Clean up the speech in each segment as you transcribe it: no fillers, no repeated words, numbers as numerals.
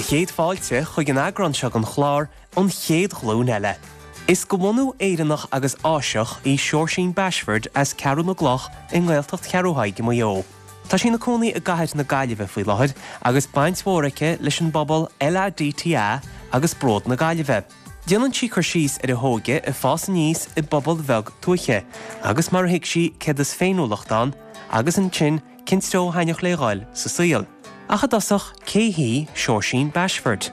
Céad fáilte chuig an eagrán seo den chlár, An Chéad Ghlúin Eile. Is de bhunú Éireannach agus Áiseach í Seoirsín Bashford as Ceathrú na gCloch i nGaeltacht Cheathrú Thaidhg i Maigh Eo. Tá sí ina cónaí i gcathair na Gaillimhe faoi láthair agus baint mhór aici leis an bpobal LADTA agus Bród na Gaillimhe. Déanann sí cur síos ar a hóige ag fás aníos i bpobal bheag tuaithe agus mar a thuig sí céard is féiniúlacht ann agus ansin cén treo a thaitneodh léi dhul sa saol. Ach i dtosach, cé hí Seoirsín Bashford?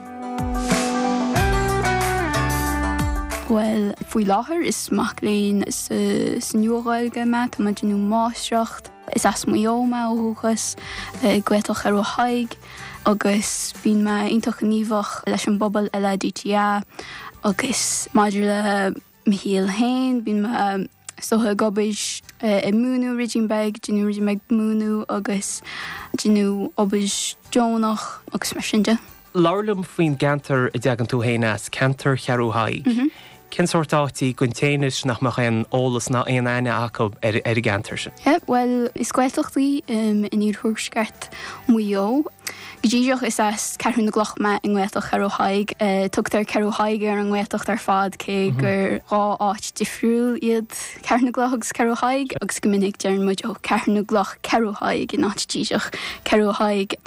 Bhuel, faoi láthair is mac léinn sa Nua-Ghaeilge mé, tá mé ag déanamh máistreacht. Is as Maigh Eo mé ó dhúchas, i Gaeltacht Cheathrú Thaidhg, agus bíonn mé iontach gníomhach leis an bpobal LADTA agus maidir le mo shaol féin, bíonn mé is dócha ag obair ag múineadh ruidín beag, déanamh ruidín beag múineadh agus déanamh obair deonach agus mar sin de. Labhair liom faoin gceantar a dtagann tú féin as, ceantar Cheathrú Thaidhg. Cén sórt áit í don té anois nach mbeadh aon eolas ná aon aithne acu ar an gceantar sin? Bhuel, is Gaeltacht í in iarthuaisceart Mhaigh Eo. Go díreach is as Ceathrú na gCloch mé i nGaeltacht Cheathrú Thaidhg. Tugtar Ceathrú Thaidhg ar an nGaeltacht ar fad cé gur 2 áit difriúil iad Ceathrú na gCloch agus Ceathrú Thaidhg agus go minic deireann muid ó Ceathrú na gCloch Ceathrú Thaidhg in áit díreach Ceathrú Thaidhg.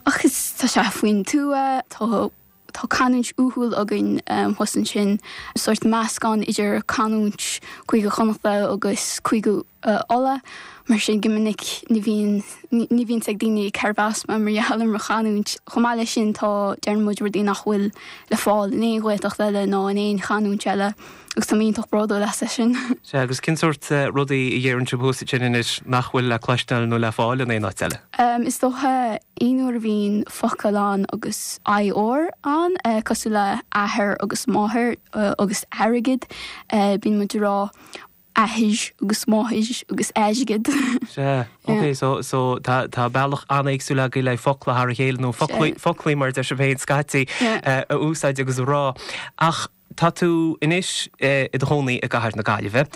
Ach is tá sé faoin tuath, tá tá canúint uathúil againn thuas ansin, sórt meascán idir canúint Cúige Chonnachta agus Cúige Uladh, mar sin go minic ní bhíonn ní bhíonn 's ag daoine cérbh as mé mar gheall ar mo chanúint. Chomh maith leis sin tá deireann muid rudaí nach bhfuil le fáil in aon Ghaeltacht eile ná in aon chanúint eile. Agus tá mé iontach bródúil as é sin. Sea, agus cén sórt rudaí a dheireann sibh thuas ansin anois nach bhfuil le cloisteáil nó le fáil in aon áit eile? Is dócha aon uair a bhíonn focal ann agus IR ann, cosúil le athair agus máthair agus airgead, bíonn muid ag rá athair agus máthair agus airgead. Sea, ok, so, so tá, tá bealach an-éagsúil agaibh le focla thar a chéile nó foclaí, foclaí mar a deir sibh féin scaití, a úsáid agus a rá. Ach Tá tú anois i do chónaí i gcathair na Gaillimhe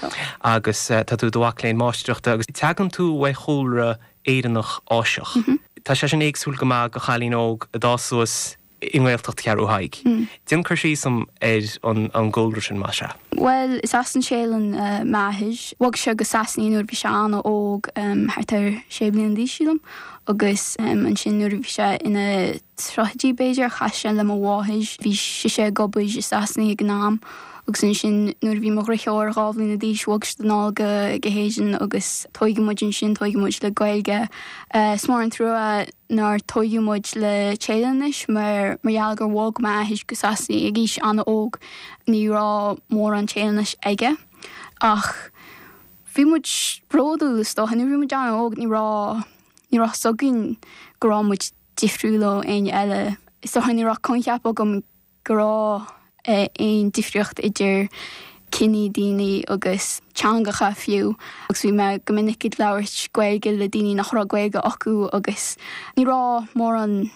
agus tá tú i do mhac léinn máistreachta agus tagann tú ó chúlra Éireannach Áiseach. Tá sé sin éagsúil go maith do chailín óg a d'fhás suas i nGaeltacht Cheathrú Thaidhg. Déan cur síos dom ar an gcúlra sin, más ea. Bhuel, is as an Téalainn m'athair. Bhog sé go Sasana nuair a bhí sé an-óg, thart ar sé bliana d'aois, sílim, agus ansin nuair a bhí sé ina tríochaidí b'fhéidir, chas sé le mo mháthair. Bhí sise ag obair i Sasana ag an am agus ansin nuair a bhí mo dhriotháir 2 bhliana d'aois bhog siad anall go go hÉirinn agus tóigeadh muid ansin, tóigeadh muid le Gaeilge. Is mór an trua nár tóigeadh muid le Téalainnis mar mar gheall gur bhog m'athair go Sasana ag aois an-óg ní raibh mórán Téalainnis aige ach bhí muid bródúil is dócha. Nuair a bhí muid an-óg ní raibh ní raibh 's againn go raibh muid difriúil ó éinne eile. Is dócha ní raibh coincheap agam go raibh aon difríocht idir ciní daoine agus teangacha fiú agus bhí mé go minic ag labhairt Gaeilge le daoine nach raibh Gaeilge acu agus ní raibh mórán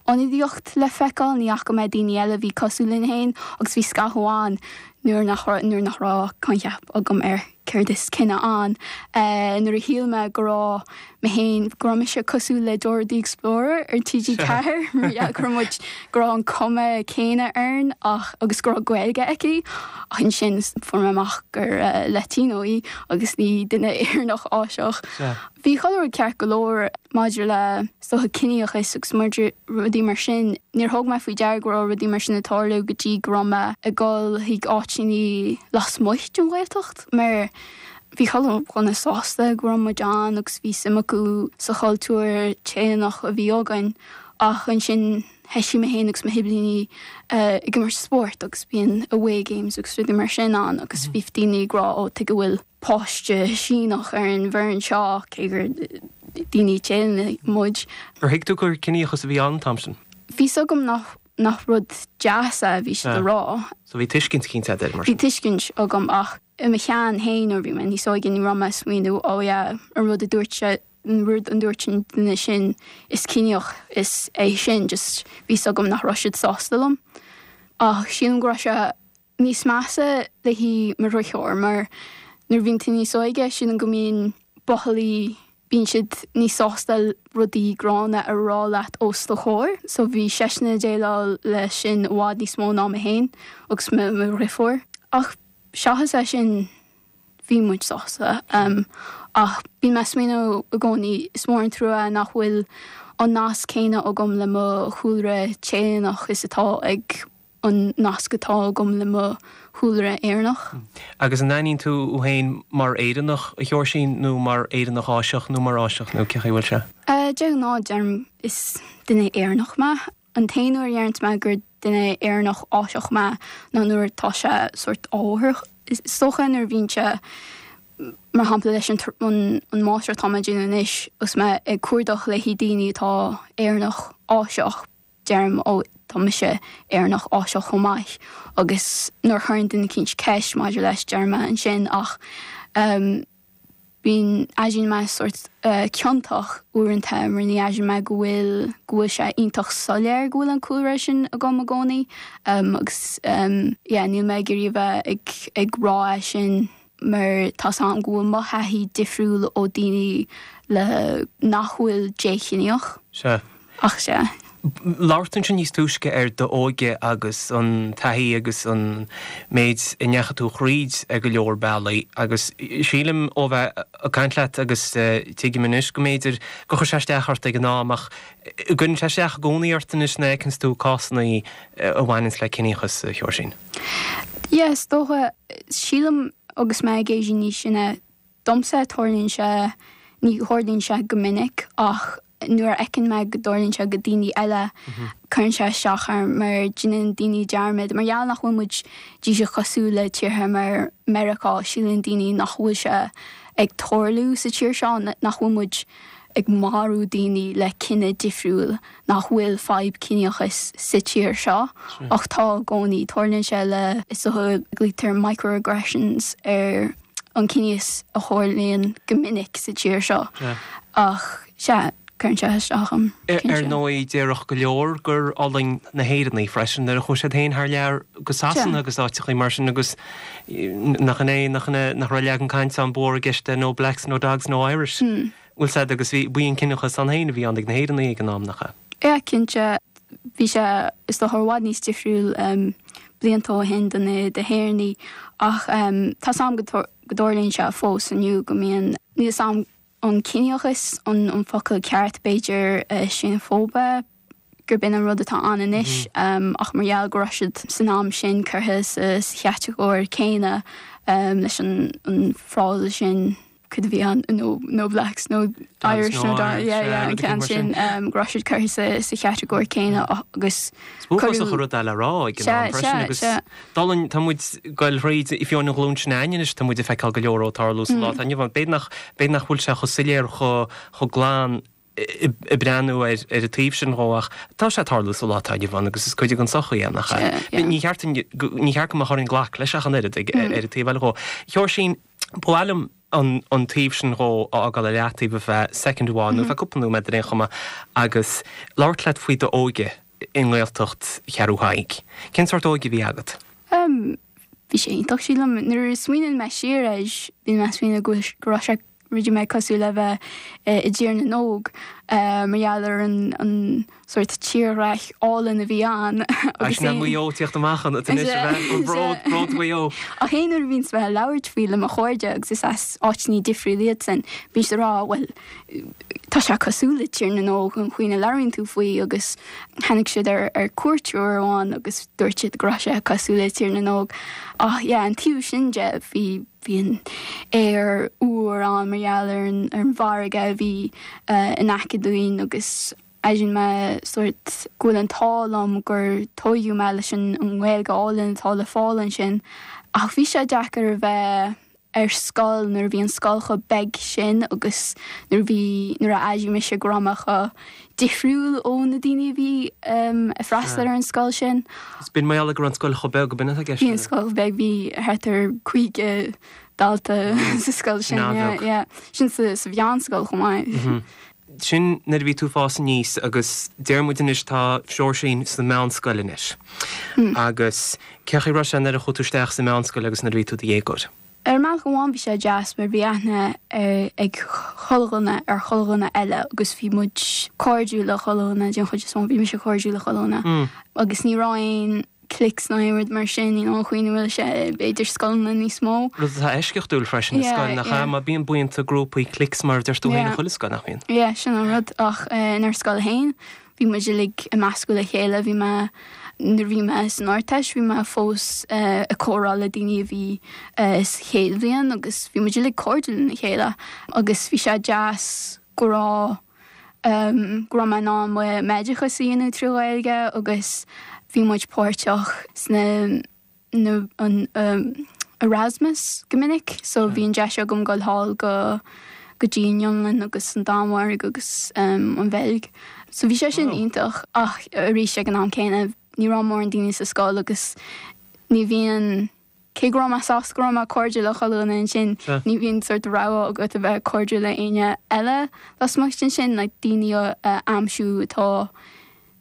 ionadaíocht le feiceáil, ní fhaca mé daoine eile a bhí cosúil linn féin agus bhí scaitheamh ann nuair nach nuair nach raibh coincheap agam ar céard is cine ann. Nuair a shíl mé go raibh mé féin, go raibh mise cosúil le Dora the Explorer ar TG4, mar gheall go raibh muid, go raibh an cuma céanna orainn ach, agus go raibh Gaeilge aici, ach ansin fuair mé amach gur Latino í agus ní duine Éireannach Áiseach. Bhí chuile rud ceart go leor maidir le, is dócha, ciníochas agus maidir rudaí mar sin. Níor thug mé faoi deara go raibh rudaí mar sin ag tarlú go dtí go raibh mé ag dul chuig áiteanna lasmuigh den Ghaeltacht mar bhí chuile dhuine sásta go raibh muid ann agus bhí suim acu sa chultúr Téalannach a bhí againn ach ansin thoisigh mé féin agus mo shiblíní ag imirt spóirt agus bíonn away games agus rudaí mar sin ann agus bhí daoine ag rá ó tuige a bhfuil páiste Síneach ar an bhfoireann seo, cé gur daoine Téalannacha muid. Ar thuig tú gur ciníochas a bhí ann an t-am sin? Bhí 's agam nach nach rud deas é a bhí siad a rá. So bhí tuiscint eicínt agat air, mar sin? Bhí tuiscint agam ach i mo cheann féin nuair a bhí mé níos óige ní raibh mé ag smaoineamh oh yeah an rud a dúirt sé an rud a dúirt an duine sin is ciníoch is é sin just bhí 's agam nach raibh siad sásta liom. Ach sílim go raibh sé níos measa le haghaidh mo dhriotháir mar nuair a bhíonn tú níos óige sílim go mbíonn buachaillí Bíonn siad níos sásta rudaí gránna a rá leat os do chomhair, so bhí seisean ag déileáil leis sin i bhfad níos mó ná mé féin agus mo dhriofúr. Ach seachas é sin, bhí muid sásta. Ach bíonn mé ag smaoineamh i gcónaí, is mór an trua nach bhfuil an nasc céanna agam le mo chúlra Téalaannach is atá ag an nasc atá agam le mo chúlra Éireannach. Agus an aithníonn tú thú féin mar Éireannach, a Sheoirsín, nó mar Éireannach Áiseach nó mar Áiseach nó cé chaoi a bhfuil sé? De ghnáth deirim is duine Éireannach mé. An t-aon uair a dheireanns mé gur duine Éireannach Áiseach mé ná nuair atá sé sórt ábhartha. Is dócha nuair a bhíonn sé, mar shampla leis an an máistreacht atá mé ag déanamh anois, agus mé ag cuardach le haghaidh daoine atá Éireannach Áiseach, deirim, ó, tá mise Éireannach Áiseach chomh maith agus nuair a chuireann duine eicínt ceist maidir leis, deirim é ansin ach bíonn, airíonn mé sórt ciontach uaireanta mar ní airíonn mé go bhfuil, go bhfuil sé iontach soiléir go bhfuil an cúlra sin agam i gcónaí agus yeah níl mé ag iarraidh a bheith ag, ag rá é sin mar tá's a'm go bhfuil mo thaithí difriúil ó daoine le nach bhfuil déchiníoch. Sea. Ach sea. Labhair tú ansin níos túisce ar d'óige agus an taithí agus an méid a ndeachaigh tú thríd ar go leor bealaí agus sílim ó bheith ag caint leat agus tuigim anois go mb'fhéidir gur chuir sé isteach ort ag an am ach an gcuireann sé isteach i gcónaí ort anois nuair a fheiceanns tú cásanna a bhaineanns le ciníochas, a Sheoirsín? Yeah, is dócha. Sílim agus mé ag éirí níos sine, Domsa, tarlaíonn sé, ní tharlaíonn sé go minic ach nuair a fheiceann mé go dtarlaíonn sé go daoine eile, cuireann sé isteach orm mar déanann daoine dearmad, mar gheall nach bhfuil muid díreach cosúil le tíortha mar Meiriceá, síleann daoine nach bhfuil sé ag tarlú sa tír seo, nach bhfuil muid ag marú daoine le cine difriúil, nach bhfuil fadhb ciníochais sa tír seo ach tá i gcónaí. Tarlaíonn sé le, is dócha, glaoitear microaggressions ar an ciníochas a tharlaíonn go minic sa tír seo ach sea, cuireann sé isteach orm, cinnte. Ar ndóigh, déarfadh go leor gur fhulaing na hÉireannaigh freisin nuair a chuaigh siad féin thar lear go Sasana agus áiteachaí mar sin agus nach in é, nach in é, nach raibh leagan cainte ann ba mhór i gceist de no blacks, no dogs, no Irish. Bhfuil 's a'd agus bhí, b'í an ciníochas ann féin a bhí ann ag na hÉireannaigh ag an am, nach ea? Yeah, cinnte. Bhí sé, is dócha, i bhfad níos difriúil blianta ó shin do na hÉireannaigh ach tá 's a'm go dtarlaíonn sé fós inniu go mbíonn, níl 's a'm an ciníochas an focal ceart, b'fhéidir seineafóibe, gurb in an rud atá ann anois ach mar gheall go raibh siad san am sin curtha sa chatagóir céanna leis an frása sin cad a bhí ann no no blacks no Irish no yeah yeah an ceann sin go raibh siad curtha sa sa chatagóir céanna agus Is uafásach an rud é le rá ag an am freisin agus dul tá muid ag goil thríd fiú an ghlúin sin againne anois tá muid ag feiceáil go leor ag tarlú sa lá atá inniu ann. B'fhéidir nach b'fhéidir nach bhfuil sé chomh soiléir chomh chomh glan ag breathnú ar an taobh sin dhó ach tá sé ag tarlú sa lá atá inniu ann agus is cuid den tsochaí é, nach ea? Ní cheart ní cheart go mbeadh orainn glacadh leis ach an oiread ag ar an taobh eile dhó. Sheoirsín, ba mhaith liom an an taobh sin dhó a fhágáil ar leataobh ar feadh soicind amháin nó ar feadh cúpla nóiméad ar aon chuma agus labhairt leat faoi d'óige i nGaeltacht Cheathrú Thaidhg. Cén sórt óige a bhí agat? Bhí sé iontach, sílim. Nuair a smaoiníonn mé siar air, bíonn mé ag smaoineamh go go raibh sé rud éigin cosúil le bheith i dTír na nÓg mar gheall ar an sórt tírdhreach álainn a bhí ann agus Sin Maigh Eo tíocht amach an anois a bheith an bród, bród Mhaigh Eo. Ach aon uair a bhíonns mé ag labhairt faoi le mo chairde agus is as áiteanna difriúla iadsan, bíonn siad ag rá bhuel tá sé cosúil le Tír na nÓg an chaoi a labhraíonn tú faoi agus tháinig siad ar ar cuairt uair amháin agus dúirt siad go raibh sé cosúil le Tír na nÓg. Ach yeah an taobh sin de bhí Bhí an aer úr ann mar gheall ar an ar an bhfarraige a bhí in aice dúinn agus airíonn mé sórt go bhfuil an t-ádh liom gur tóigeadh mé leis an nGaeilge álainn atá le fáil ansin. Ach bhí sé deacair a bheith ar scoil nuair a bhí an scoil chomh beag sin agus nuair a bhí nuair a airigh mise go raibh mé chomh difriúil ó na daoine a bhí ag freastal ar an scoil sin. Is b'in mar gheall go raibh an scoil chomh beag, ab in atá i gceist? Bhí an scoil beag, bhí thart ar 50 dalta sa scoil sin, yeah, yeah. Sin sa mheánscoil chomh maith. Sin nuair a bhí tú ag fás aníos agus deir muid anois tá Seoirsín sa mheánscoil anois. Agus cén chaoi a raibh sé nuair a chuaigh tú isteach sa mheánscoil agus nuair a bhí tú i do dhéagóir? Ar mbealach amháin bhí sé deas mar bhí aithne ag chuile dhuine ar chuile dhuine eile agus bhí muid cairdiúil le chuile dhuine den chuid is mó, bhí mise cairdiúil le chuile dhuine agus ní raibh aon cliques ná aon rud mar sin, you know, an chaoi ina bhfuil sé b'fhéidir scoileanna níos mó. Rud atá eisceachtúil freisin i scoil, nach ea? Mar bíonn buíonta, grúpaí, cliques mar a deir tú féin i chuile scoil, nach mbíonn? Yeah, sin an rud ach inár scoil féin Bhí muid uilig ag meascadh le chéile, bhí mé, nuair a bhí mé san Ardteist, bhí mé fós ag comhrá le daoine a bhí sa chéad bhliain agus bhí muid uilig cairdiúil lena chéile agus bhí sé deas go raibh, go raibh mé in ann m'oideachas a dhéanamh trí Ghaeilge agus bhí muid páirteach sna. nó an Erasmus go minic so bhí an deis agam dul thall go go dtí an Fhionlainn agus an Danmhairg agus an Bheilg. So bhí sé sin iontach ach arís ag an am céanna ní raibh mórán daoine sa scoil agus ní bhíonn, cé go raibh mé sásta go raibh mé cairdiúil le chuile dhuine ansin, ní bhíonn sort rogha agat a bheith cairdiúil le éinne eile lasmuigh den sin, like daoine a aimsiú atá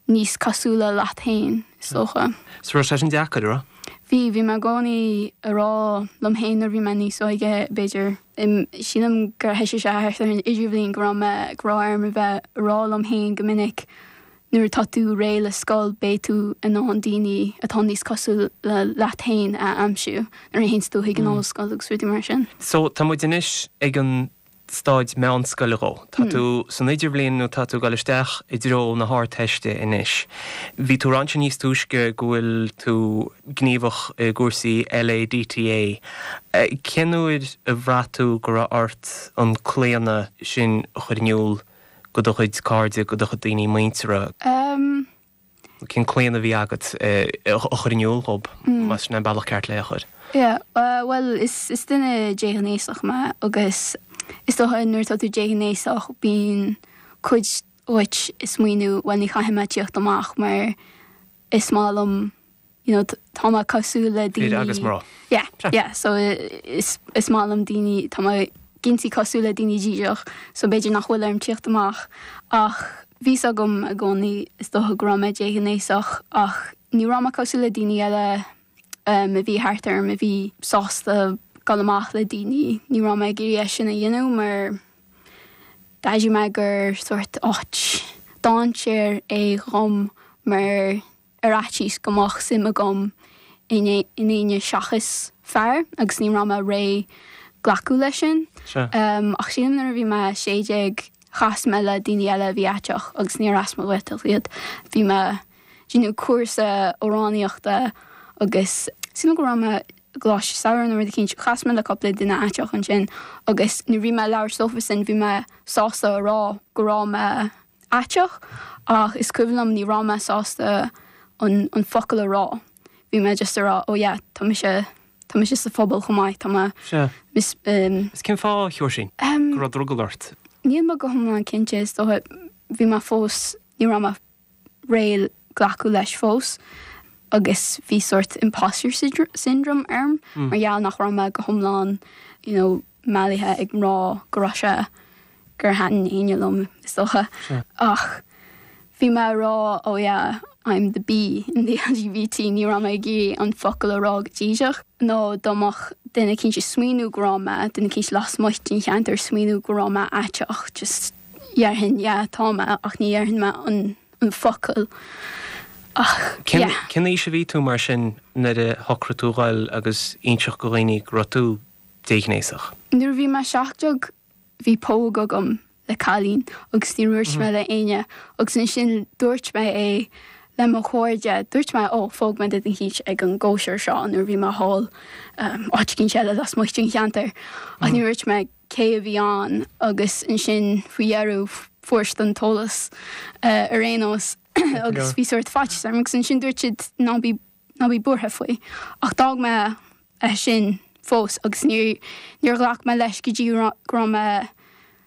níos cosúla leat féin, is dócha. So raibh sé sin deacair, a raibh? Bhí, bhí mé i gcónaí a rá liom féin nuair a bhí mé níos óige, b'fhéidir, sílim gur thoisigh sé thart ar an idirbhliain go raibh mé, go raibh orm a bheith a rá liom féin go minic nuair atá tú réidh le scoil beidh tú in ann daoine atá níos cosúla leat féin a aimsiú nuair a théanns tú chuig an ollscoil agus rudaí mar sin. So tá muid anois ag an staid meánscoile dhó. Tá tú san idirbhliain nó tá tú ag dul isteach i dtreo na hArdteiste anois. Bhí tú ag rá ansin níos túisce go bhfuil tú gníomhach i gcúrsaí LADTA. Cén uair a bhraith tú go raibh ort an claonadh sin a chur in iúl go do chuid cairde, go do chuid daoine muinteartha? Cén claonadh a bhí agat a chur in iúl dhób, más sin an bealach ceart le é a chur? Yeah, bhuel, is is duine déghnéasach mé agus is dócha nuair atá tú déghnéasach bíonn cuid dhuit ag smaoineamh bhuel ní chaithfidh mé tíocht amach mar is maith liom you know tá mé cosúil le daoine. Fir agus mná. Yeah, yeah, so is is maith liom daoine, tá mé cinnte cosúil le daoine díreach so b'fhéidir nach bhfuil orm tíocht amach ach bhí 's agam i gcónaí is dócha go raibh mé déghnéasach ach ní raibh mé cosúil le daoine eile a bhí thart orm a bhí sásta dul amach le daoine, ní raibh mé ag iarraidh é sin a dhéanamh mar d'airigh mé gur sórt áit dainséir é dhom mar ar fhaitíos go mbeadh suim agam in éinne seachas fear agus ní raibh mé réidh glacadh leis sin. Ach sílim nuair a bhí mé 16 chas mé le daoine eile a bhí aiteach agus níor as mo Ghaeltacht iad. Bhí mé ag déanamh cúrsa amhránaíochta agus sílim go raibh mé i gcoláiste samhraidh nó rud eicínt. Chas mé le cúpla duine aiteach ansin agus nuair a bhí mé ag labhairt leofasan bhí mé sásta a rá go raibh mé aiteach ach is cuimhin liom ní raibh mé sásta an an focal a rá. Bhí mé just a rá oh yeah tá mise tá mise sa phobal chomh maith tá mé Sea. mis um Is cén fáth a Sheoirsín go raibh drogall ort? Níl mé go hiomlán cinnte is dócha bhí mé fós ní raibh mé réidh glacadh leis fós agus bhí sórt imposter syndrome orm mar gheall nach raibh mé go hiomlán you know meathlaithe ag mná go raibh sé gur thaitin éinne liom, is dócha. Ach bhí mé ag rá oh yeah, I'm the B in the LGBT, ní raibh mé ag iarraidh an focal a rá go díreach, nó dá mbeadh duine eicínt ag smaoineamh go raibh mé, duine eicínt lasmuigh den cheantar ag smaoineamh go raibh mé aiteach, just dhéarfainn yeah, tá mé, ach ní dhéarfainn mé an an focal. Ach yeah. Cén aois a bhí tú mar sin nuair a shocraigh tú dhul agus inseacht go dhaoine go raibh tú déghnéasach? Nuair a bhí mé 17 bhí póg agam le cailín agus ní dhúirt mé le éinne agus ansin dúirt mé é le mo chairde, dúirt mé ó phóg mé duine eicínt ag an gcóisir seo nuair a bhí mé thall áit eicínt eile lasmuigh den cheantar ach ní dhúirt mé cé a bhí ann agus ansin faoi dheireadh fuair siad an t-eolas ar aon nós agus bhí sórt faitíos orm agus ansin dúirt siad ná bí ná bí buartha faoi. Ach d'fhág mé é sin fós agus níor níor ghlac mé leis go dtí go raibh mé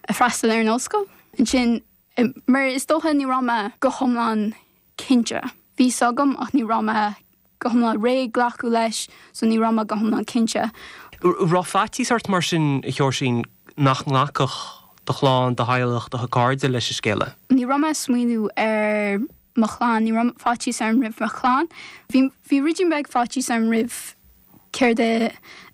ag freastal ar an ollscoil. Ansin, mar is dócha ní raibh mé go hiomlán cinnte. Bhí 's agam ach ní raibh mé go hiomlán réidh glacadh leis so ní raibh mé go hiomlán cinnte. Raibh faitíos ort mar sin, a Sheoirsín, nach nglacfadh do chlann, do theaghlach, do chairde leis an scéala? Ní raibh mé ag smaoineamh ar mo chlann, ní raibh faitíos orm roimh mo chlann. Bhí, bhí ruidín beag faitíos orm roimh. céard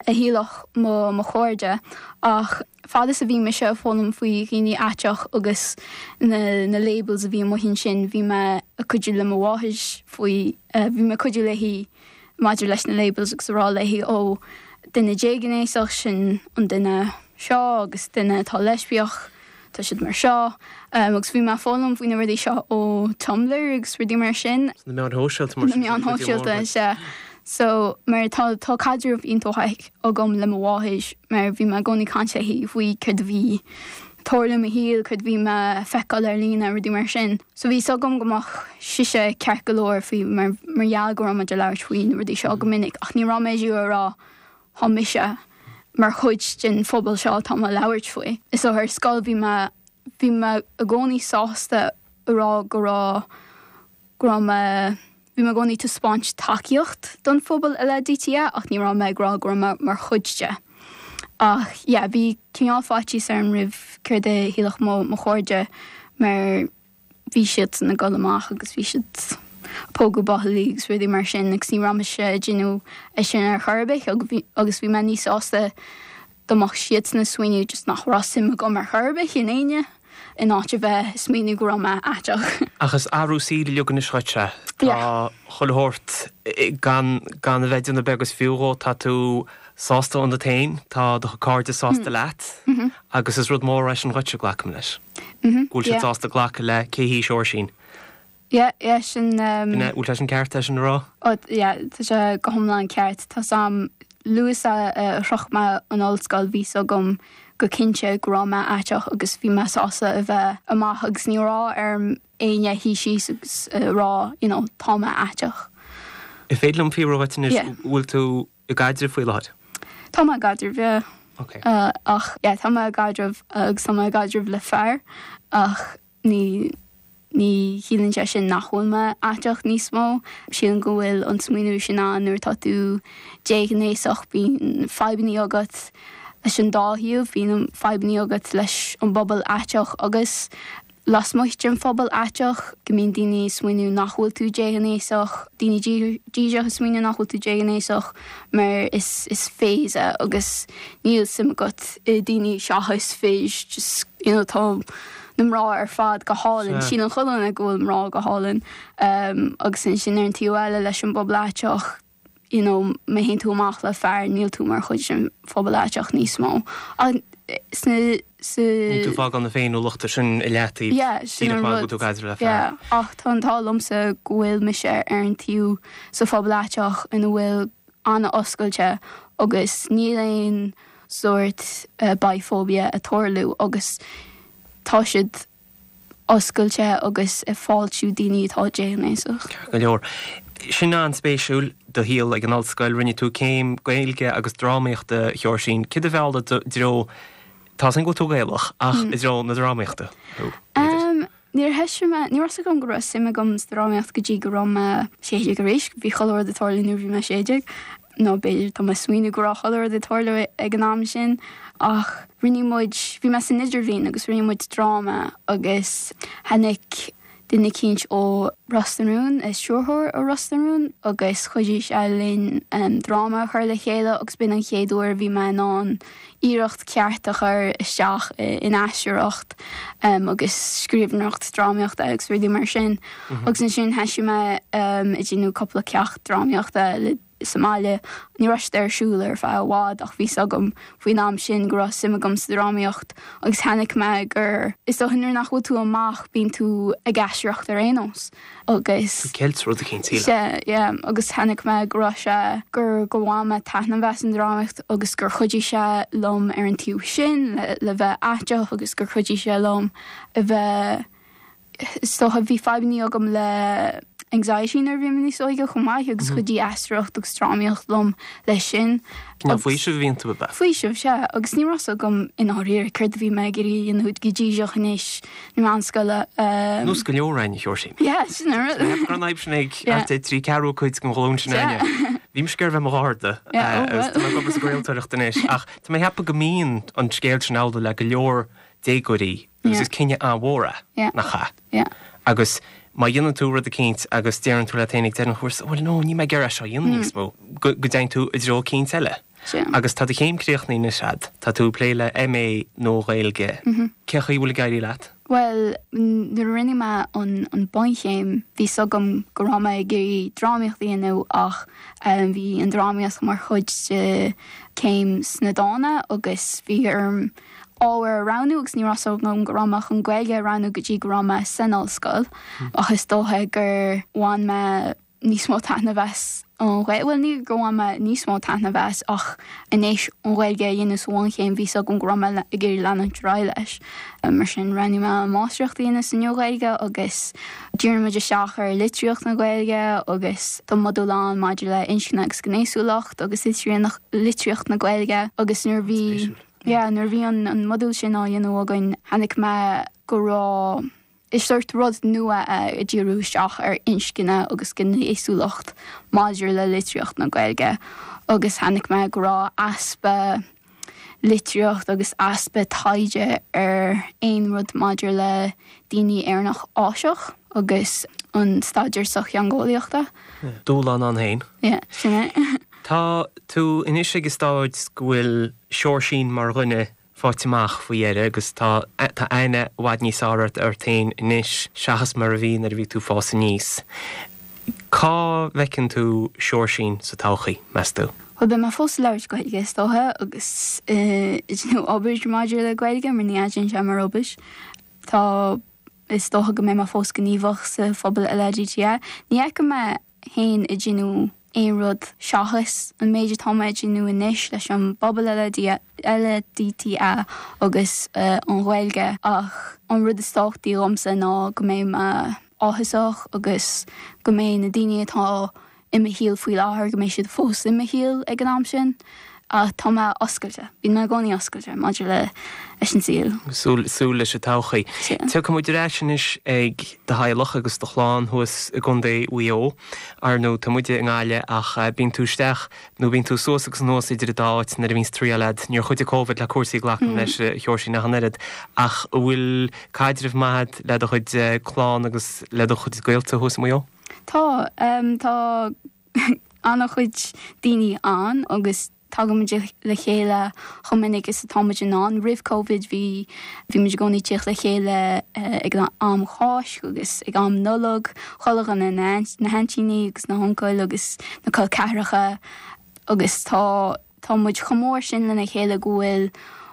a shílfeadh mo mo chairde ach fad is a bhí mise ag foghlaim faoi dhaoine aiteach agus na na labels a bhí amuigh ansin bhí mé ag cuidiú le mo mháthair faoi bhí mé ag cuidiú léi maidir leis na labels agus a rá léi ó duine déghnéasach sin an duine seo agus duine atá leispiach tá siad mar seo. Agus bhí mé ag foghlaim faoi na rudaí seo ó Tumblr agus rudaí mar sin. Na meáin shóisialta mar sin. Na meáin shóisialta, sea. So, mar tá tá caidreamh iontach maith agam le mo mháthair mar bhí mé i gcónaí ag caint léi faoi céard a bhí ag tarlú i mo shaol, céard a bhí mé ag feiceáil ar líne, rudaí mar sin. So bhí 'fhios agam go mbeadh sise ceart go leor faoi mar mar gheall go raibh muid ag labhairt faoi na rudaí seo go minic ach ní raibh mé ag rá Tá mise mar chuid den phobal seo atá mé ag labhairt faoi. So ar scoil bhí mé, bhí mé i gcónaí sásta a rá go raibh, go raibh mé, bhí mé i gcónaí ag taispeáint tacaíocht don phobal LADTA ach ní raibh mé ag rá go raibh mé mar chuid de. Ach yeah, bhí cineál faitíos orm roimh céard a shílfeadh mo, mo chairde mar, bhí siadsan ag dul amach agus bhí siad ag pógadh buachaillí agus rudaí mar sin agus ní raibh mise ag déanamh é sin ar chor ar bith agus bhí mé níos sásta dá mbeadh siadsan ag smaoineamh just nach raibh suim agam ar chor ar bith in éinne in áit a bheith ag smaoineamh go raibh mé aiteach. Ach is athrú saoil uilig anois dhuit é. Tá chuile shórt gan gan a bheith ag déanamh beag is fiú dhó, tá tú sásta ionat féin, tá do chairde sásta leat agus is rud mór é sin dhuitse, glacaim leis. Go bhfuil siad sásta glacadh le cé hí Seoirsín. Yeah, yeah, sin. Bhfuil sé sin ceart é sin a rá? Oh, yeah, tá sé go hiomlán ceart. Tá 's a'm, luath is a shroich mé an ollscoil bhí 's agam go cinnte go raibh mé aiteach agus bhí mé sásta a bheith amach agus ní raibh orm éinne a shuí síos agus a rá, you know, tá mé aiteach. An féidir liom fiafraí dhuit anois, bhfuil tú i gcaidreamh faoi láthair? Tá mé i gcaidreamh, yeah. Ok. Ach, yeah, tá mé i gcaidreamh agus tá mé i gcaidreamh le fear ach ní, ní chiallaíonn sé sin nach bhfuil mé aiteach níos mó. Sílim go bhfuil an smaoineamh sin ann nuair atá tú déghnéasach, bíonn fadhbanna agat leis an dá thaobh, bíonn fadhbanna agat leis an bpobal aiteach agus Lasmuigh den phobal aiteach, go mbíonn daoine ag smaoineamh nach bhfuil tú déghnéasach, daoine díseach ag smaoineamh nach bhfuil tú déghnéasach mar is is phase é agus níl suim agat i daoine seachas fir, just you know tá na mná ar fad go hálainn, síleann chuile dhuine go bhfuil mná go hálainn agus ansin ar an taobh eile leis an bpobal aiteach, you know má théann tú amach le fear níl tú mar chuid den phobal aiteach níos mó. Ach sna, sa. Níl tú ag fágáil na féiniúlachta sin i leataobh Yeah, sin díreach an mar go rud. bhfuil tú ag caidreamh le fear. Yeah, ach tá an t-ádh liomsa go bhfuil mise ar an taobh sa phobal aiteach ina bhfuil an-oscailte agus níl aon sórt biphobia ag tarlú agus tá siad oscailte agus ag fáiltiú daoine atá déghnéasach. Ceart go leor. Sin an-spéisiúil, do shaol ag an ollscoil. Rinne tú céim Gaeilge agus Drámaíochta, a Sheoirsín. Céard a mheall i dtreo, tá 'fhios a'm go bhfuil tú Gaelach, ach i dtreo na drámaíochta thú, b'fhéidir? Níor thoisigh mé, ní raibh 'fhios agam go raibh suim agam sa drámaíocht go dtí go raibh mé 16 arís. Bhí chuile rud ag tarlú nuair a bhí mé 16. nó b'fhéidir tá mé ag smaoineamh go raibh chuile rud ag tarlú ag an am sin ach rinne muid, bhí mé san idirbhliain agus rinne muid dráma agus tháinig duine eicínt ó Ros na Rún, stiúrthóir ó Ros na Rún agus chuidigh sé linn dráma a chur le chéile agus b'in an chéad uair a bhí mé in ann iarracht ceart a chur isteach in aisteoireacht agus scríbhneoireacht drámaíochta agus rudaí mar sin. Agus ansin thoisigh mé ag déanamh cúpla ceacht drámaíochta le sa mbaile. Ní raibh siad ar siúl ar feadh i bhfad ach bhí 's agam faoin am sin go raibh suim agam sa drámaíocht agus chonaic mé gur, is dócha nuair nach bhfuil tú amach bíonn tú ag aisteoireacht ar aon nós agus. Tú ceilt rud eicínt, sílim. Sea, yeah, agus chonaic mé go raibh sé, gur, gur bhain mé taitneamh as an drámaíocht agus gur chuidigh sé liom ar an taobh sin le, le bheith aiteach agus gur chuidigh sé liom a bheith, Is dócha, bhí fadhbanna agam le anxiety nuair a bhí mé níos óige chomh maith agus chuidigh aisteoireacht agus drámaíocht liom leis sin. Cineál faoiseamh a bhí iontu, ab ea? Faoiseamh, sea. Agus ní raibh 's agam i ndáiríre céard a bhí mé ag iarraidh a dhéanamh go díreach in aois na meánscoile. Nós go leor againn, a Sheoirsín. Yeah, sin an rud. Tá mé ag ceapadh go raibh an fhadhb sin ag thart ar thrí ceathrú cuid den ghlúin sin againne. Bhí mise ag iarraidh a bheith i mo gharda agus tá mé ag obair sa gcraoltóireacht anois ach tá mé ag ceapadh go mbíonn an scéal sin amhlaidh le go leor déagóirí agus is cinneadh an-mhór é, nach ea? Agus. Má dhéanann tú rud eicínt agus deireann tú leat féin ag deireadh an chúrsa, bhuel no, níl mé ag iarraidh é seo a dhéanamh níos mó, go dtéann tú i dtreo eicínt eile. Agus tá do chéim críochnaithe anois a'd, tá tú ag plé le MA Nua-Ghaeilge. Cén chaoi a bhfuil ag éirí leat? Bhuel, nuair a rinne mé an bunchéim, bhí 's agam go raibh mé ag iarraidh drámaíocht a dhéanamh ach bhí an drámaíocht mar chuid de céim sna dána agus bhí orm ábhar a roghnú agus ní raibh 's agam go raibh mé chun Gaeilge a roghnú go dtí go raibh mé san ollscoil ach is dócha gur bhain mé níos mó taitneamh as an Ghaeilge, bhuel ní gur bhain mé níos mó taitneamh as ach anois an Ghaeilge a dhéanamh sa bhunchéim bhí 's agam go raibh mé ag iarraidh leanúint ar aghaidh leis. Mar sin roghnaigh mé an máistreacht a dhéanamh sa Nua-Ghaeilge agus dhírigh muid isteach ar litríocht na Gaeilge agus tá modúl ann maidir le inscne agus gnéasúlacht agus litríocht na Gaeilge agus nuair a bhí yeah nuair a bhí an modúl sin á dhéanamh againn chonaic mé go raibh Is sórt rud nua é ag díriú isteach ar inscne agus gnéasúlacht maidir le litríocht na Gaeilge agus chonaic mé go raibh easpa litríocht agus easpa taighde ar aon rud maidir le daoine Éireannach Áiseach agus an staidéar sochtheangeolaíochta. Dúshlán ann féin. Yeah, sin é. Tá tú anois ag an stáid go bhfuil Seoirsín mar dhuine faighte amach faoi dheireadh agus tá tá aithne i bhfad níos fearr ort ort féin anois seachas mar a bhí nuair a bhí tú ag fás aníos. Cá bhfeiceann tú Seoirsín sa todhchaí, meas tú? Bhuel, beidh mé fós ag labhairt Gaeilge is dócha agus ag déanamh obair maidir le Gaeilge mar ní fhaigheann sé mar obair. Tá, is dócha go mbeidh mé fós gníomhach sa phobal LADTA. Ní fheicim mé féin ag déanamh aon rud seachas an méid atá mé ag déanamh anois leis an bpobal LADTA agus an Ghaeilge ach an rud is tábhachtaí dhomsa ná go mbeidh mé áthasach agus go mbeidh na daoine atá i mo shaol faoi láthair, go mbeidh siad fós i mo shaol ag an am sin. Ach tá mé oscailte, bíonn mé i gcónaí oscailte maidir le leis an saol. Súil, súil leis an todhchaí. Sea. Tiocfaidh muid ar ais anois ag do theaghlach agus do chlann thuas i gContae Mhaigh Eo. Ar ndóigh, tá muide i nGaillimh ach bíonn tú isteach nó bíonn tú suas agus anuas idir an dá áit nuair a bhíonns triall a'd. Níor chuidigh Covid le cúrsaí glacaim leis, a Sheoirsín, ach an oiread. Ach an bhfuil caidreamh maith a'd le do chuid clann agus le do chuid gaolta thuas i Maigh Eo? Tá. Tá an-chuid daoine ann agus tagaimid le chéile chomh minic is atá muid in ann. Roimh Covid bhí bhí muid i gcónaí ag tíocht le chéile ag an am Cháisc agus ag am Nollag, chuile dhuine, na haintíní agus na huncail agus na col ceathracha agus tá tá muid chomh mór sin lena chéile go bhfuil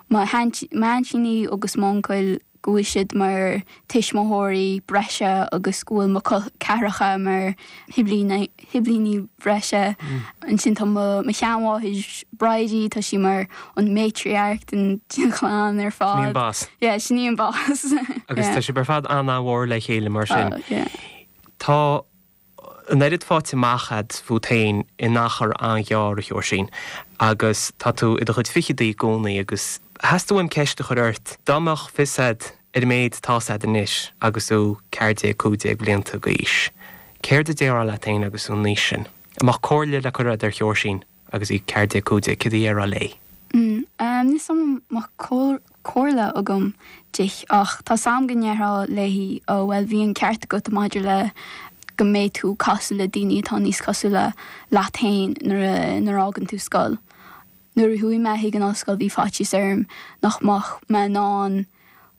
mo m'aintíní agus m'uncail go bhfuil siad mar tuismitheoirí breise agus go bhfuil mo col ceathracha mar shiblíní breise. Ansin tá mo sheanmháthair Bridie, tá sí mar an matriarch den chlann ar fad. Sin í an boss. Yeah, sin í an boss. Agus tá sibh ar fad an-mhór le chéile mar sin. Oh, yeah. Tá an oiread faighte amach a'd fút féin in achar an-ghearr, a Sheoirsín, agus tá tú i do chuid fichidí i gcónaí agus theastaigh uaim ceist a chur ort, dá mbeadh fios a'd ar an méid atá's a'd anois agus thú 14, 15 blianta d'aois, céard a déarfá leat féin agus thú an aois sin? An mbeadh comhairle le cur a'd ar Sheoirsín? Agus í 14, 15, céard a dhéarfá léi? Níl 's a'm an mbeadh comhairle agam di ach tá 's a'm go ndéarfá léi oh bhuel bhí an ceart agat maidir le go mbeidh tú casadh le daoine atá níos cosúla leat féin nuair a nuair a fhágann tú scoil. Nuair a chuaigh mé chuig an ollscoil bhí faitíos orm nach mbeadh mé in ann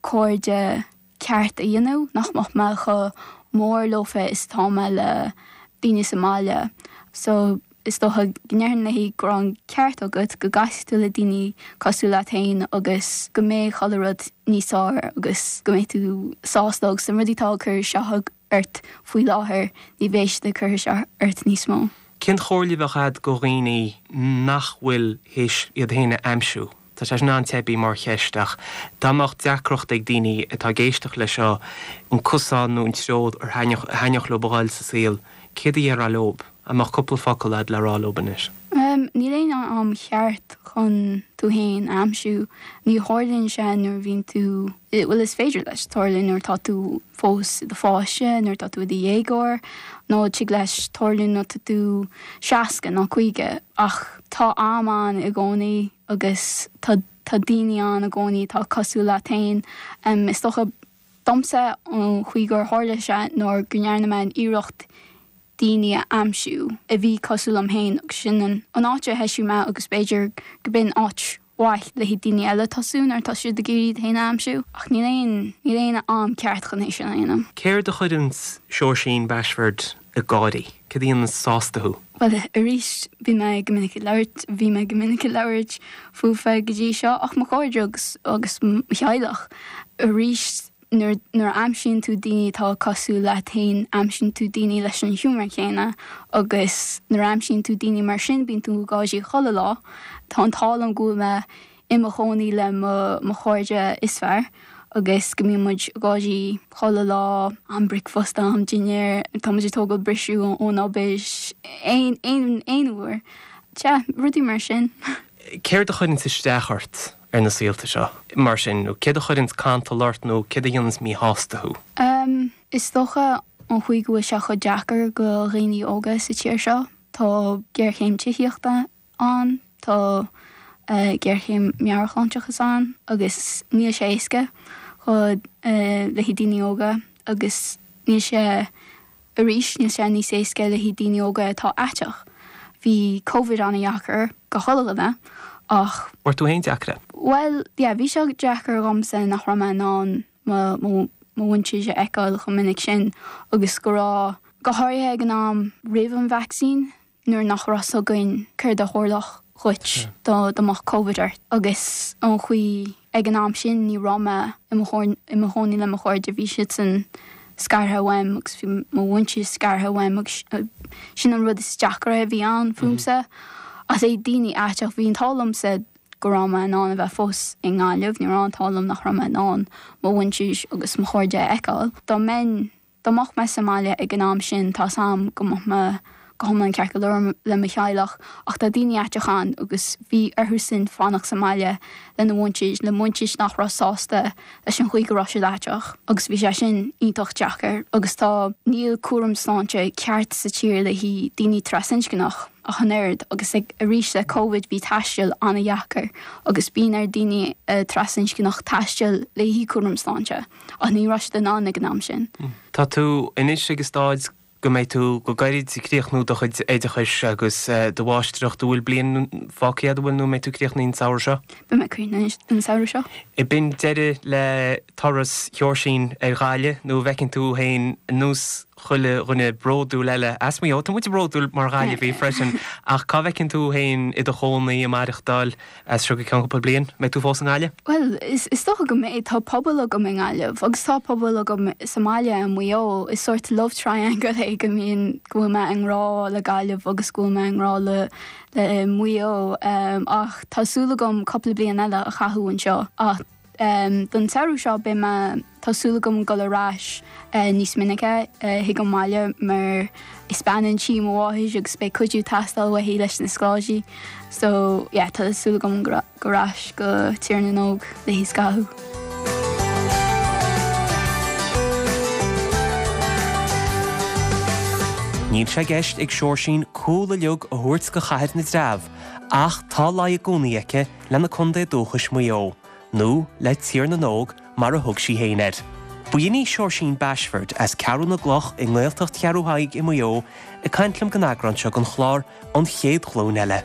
cairde ceart a dhéanamh, nach mbeadh mé chomh mór leofa is atá mé le daoine sa mbaile. So, is dócha go ndéarfainn léi go raibh an ceart agat, go gcasfaidh tú le daoine cosúil leat féin agus go mbeidh chuile rud níos fearr agus go mbeidh tú sásta agus na rudaí atá ag cur isteach ort faoi láthair, ní bheidh siad ag cur isteach ort níos mó. Cén chomhairle a bheadh a'd go dhaoine nach bhfuil théis iad féin a aimsiú? Tá sé sin an-teibí mar cheist ach dá mbeadh deacracht ag daoine atá ag éisteacht leis seo an cosán nó an treo ar thaitneodh leo a dhul sa saol, céard a dhéarfá leob? An mbeadh cúpla focal a'd le rá leob anois? Níl aon am cheart chun tú féin a aimsiú. Ní tharlaíonn sé nuair a bhíonn tú, bhuel is féidir leis tarlú nuair atá tú fós i do pháiste, nuair atá tú i do dhéagóir, nó tig leis tarlú nuair atá tú 60 nó 50 ach tá am ann i gcónaí. agus tá tá daoine ann i gcónaí atá cosúil leat féin. Is dócha. Domsa, an chaoi gur tharla sé ná go ndearna mé an iarracht daoine a aimsiú a bhí cosúil liom féin agus sin an áit a thoisigh mé agus b'fhéidir go b'in áit mhaith le haghaidh daoine eile tosú nuair atá siad ag iarraidh iad féin a aimsiú ach níl aon níl aon am ceart chun é sin a dhéanamh. Céard a chuireanns Seoirsín Bashford ag gáirí? Céard a dhéananns sásta thú? Bhuel, arís, bhí mé go minic ag labhairt, bhí mé go minic ag labhairt fúfa go dtí seo ach mo chairde agus agus mo theaghlach. Arís, nuair nuair a aimsíonn tú daoine atá cosúil leat féin, aimsíonn tú daoine leis an humour céanna agus nuair a aimsíonn tú daoine mar sin bíonn tú ag gáirí chuile lá. Tá an t-ádh liom go bhfuil mé i mo chónaí le mo mo chairde is fearr agus go mbíonn muid ag gáirí chuile lá, am bricfeasta, am dinnéir, tá muid ag tógáil briseadh ón obair, aon aon aon uair. Sea, rudaí mar sin. Céard a chuireanns isteach ort ar na saolta seo, mar sin, nó céard a chuireanns cantal ort nó céard a dhéananns míshásta thú? Em, is dócha an chaoi go bhfuil sé chomh deacair go dhaoine óga sa tír seo. Tá géarchéim tithíochta ann, tá géarchéim meabhairshláinteachas ann agus níl sé éasca go le haghaidh daoine óga agus níl sé arís níl sé níos éasca le haghaidh daoine óga atá aiteach. Bhí Covid an-dheacair go chuile dhuine ach. Bhfuair tú féin deacair é? Bhuel, yeah, bhí sé deacair dhomsa nach raibh mé in ann mo mo mhuintir a fheiceáil chomh minic sin agus go raibh, go háirithe ag an am roimh an vacsaín, nuair nach raibh 's againn céard a tharlódh dhuit dá mbeadh Covid ort agus an chaoi ag an am sin ní raibh mé i mo i mo chónaí le mo chairde, bhí siadsan scartha uaim agus bhí mo mhuintir scartha uaim agus sin an rud is deacra a bhí ann fúmsa. Ach le daoine aiteach, bhí an t-ádh liomsa go raibh mé in ann a bheith fós i nGaillimh, ní raibh an t-ádh liom nach raibh mé in ann mo mhuintir agus mo chairde a fheiceáil. Dá mbeinn Dá mbeadh mé sa mbaile ag an am sin, tá's a'm go mbeadh mé go hiomlán ceart go leor le mo theaghlach ach tá daoine aiteach ann agus bhí orthusan fanacht sa mbaile lena mhuintir, le muintir nach raibh sásta leis an chaoi go raibh siad aiteach agus bhí sé sin iontach deacair agus tá, níl cúram sláinte ceart sa tír le haghaidh daoine trasinscneach ach an oiread agus ag, arís le Covid bhí taisteal an-dheacair agus bíonn ar daoine trasinscneach taisteal le haghaidh cúram sláinte. Ach ní raibh siad in ann ag an am sin. Tá tú anois ag an stáid go mbeidh tú go gairid ag críochnú do chuid oideachais agus do mháistreacht. An bhfuil bliain fágtha agat, an bhfuil, nó an mbeidh tú críochnaithe an samhradh seo? Beidh mé críochnaithe an samhradh seo. Ab in deireadh le turas Sheoirsín ar Ghaillimh nó an bhfeiceann tú féin ar nós chuile dhuine bródúil eile as Maigh Eo, tá muid bródúil mar Ghaillimhigh freisin, ach cá bhfeiceann tú féin i do chónaí, ag maireachtáil? As seo go ceann cúpla bliain, mbeidh tú fós i nGaillimh? Bhuel, is dócha go mbeidh. Tá pobal agam i nGaillimh agus tá pobal agam sa mbaile i Maigh Eo. Is sórt love triangle é go mbíonn, go bhfuil mé i ngrá le Gaillimh agus go bhfuil mé i ngrá le le Maigh Eo. Ach tá súil agam cúpla bliain eile a chaitheamh anseo. Ach don samhradh seo beidh mé, tá súil agam dul ar ais níos minice chuig an mbaile mar is bean an tí mo mháthair agus beidh cuidiú ag teastáil uaithi leis na scoláirí. So yeah tá súil agam dul ar ais go Tír na nÓg léi scaitheamh. Níl sé i gceist ag Seoirsín cúl uilig a thabhairt go Chathair na dTreabh ach tá luí i gcónaí aici lena contae dúchais Maigh Eo, nó le Tír na nÓg mar a thug sí féin air. B'in í Seoirsín Bashford as Ceathrú na gCloch i nGaeltacht Cheathrú Thaidhg i Maigh Eo ag caint liom don eagrán seo den chlár An Chéad Ghlúin Eile.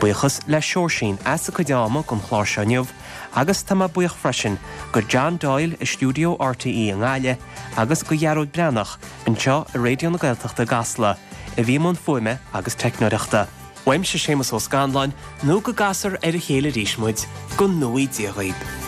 Buíochas le Seoirsín as a cuid ama don chlár seo inniu agus tá mé buíoch freisin go John Doyle i stiúideo RTÉ i nGaillimh agus go Ghearóid Breathnach anseo i Raidió na Gaeltachta i gCasla a bhí i mbun fuaime agus teicneoireachta. Uaimse Séamus Ó Scanláin, nó go gcasfar ar a chéile arís muid, go ngnóthaí Dia dhaoib.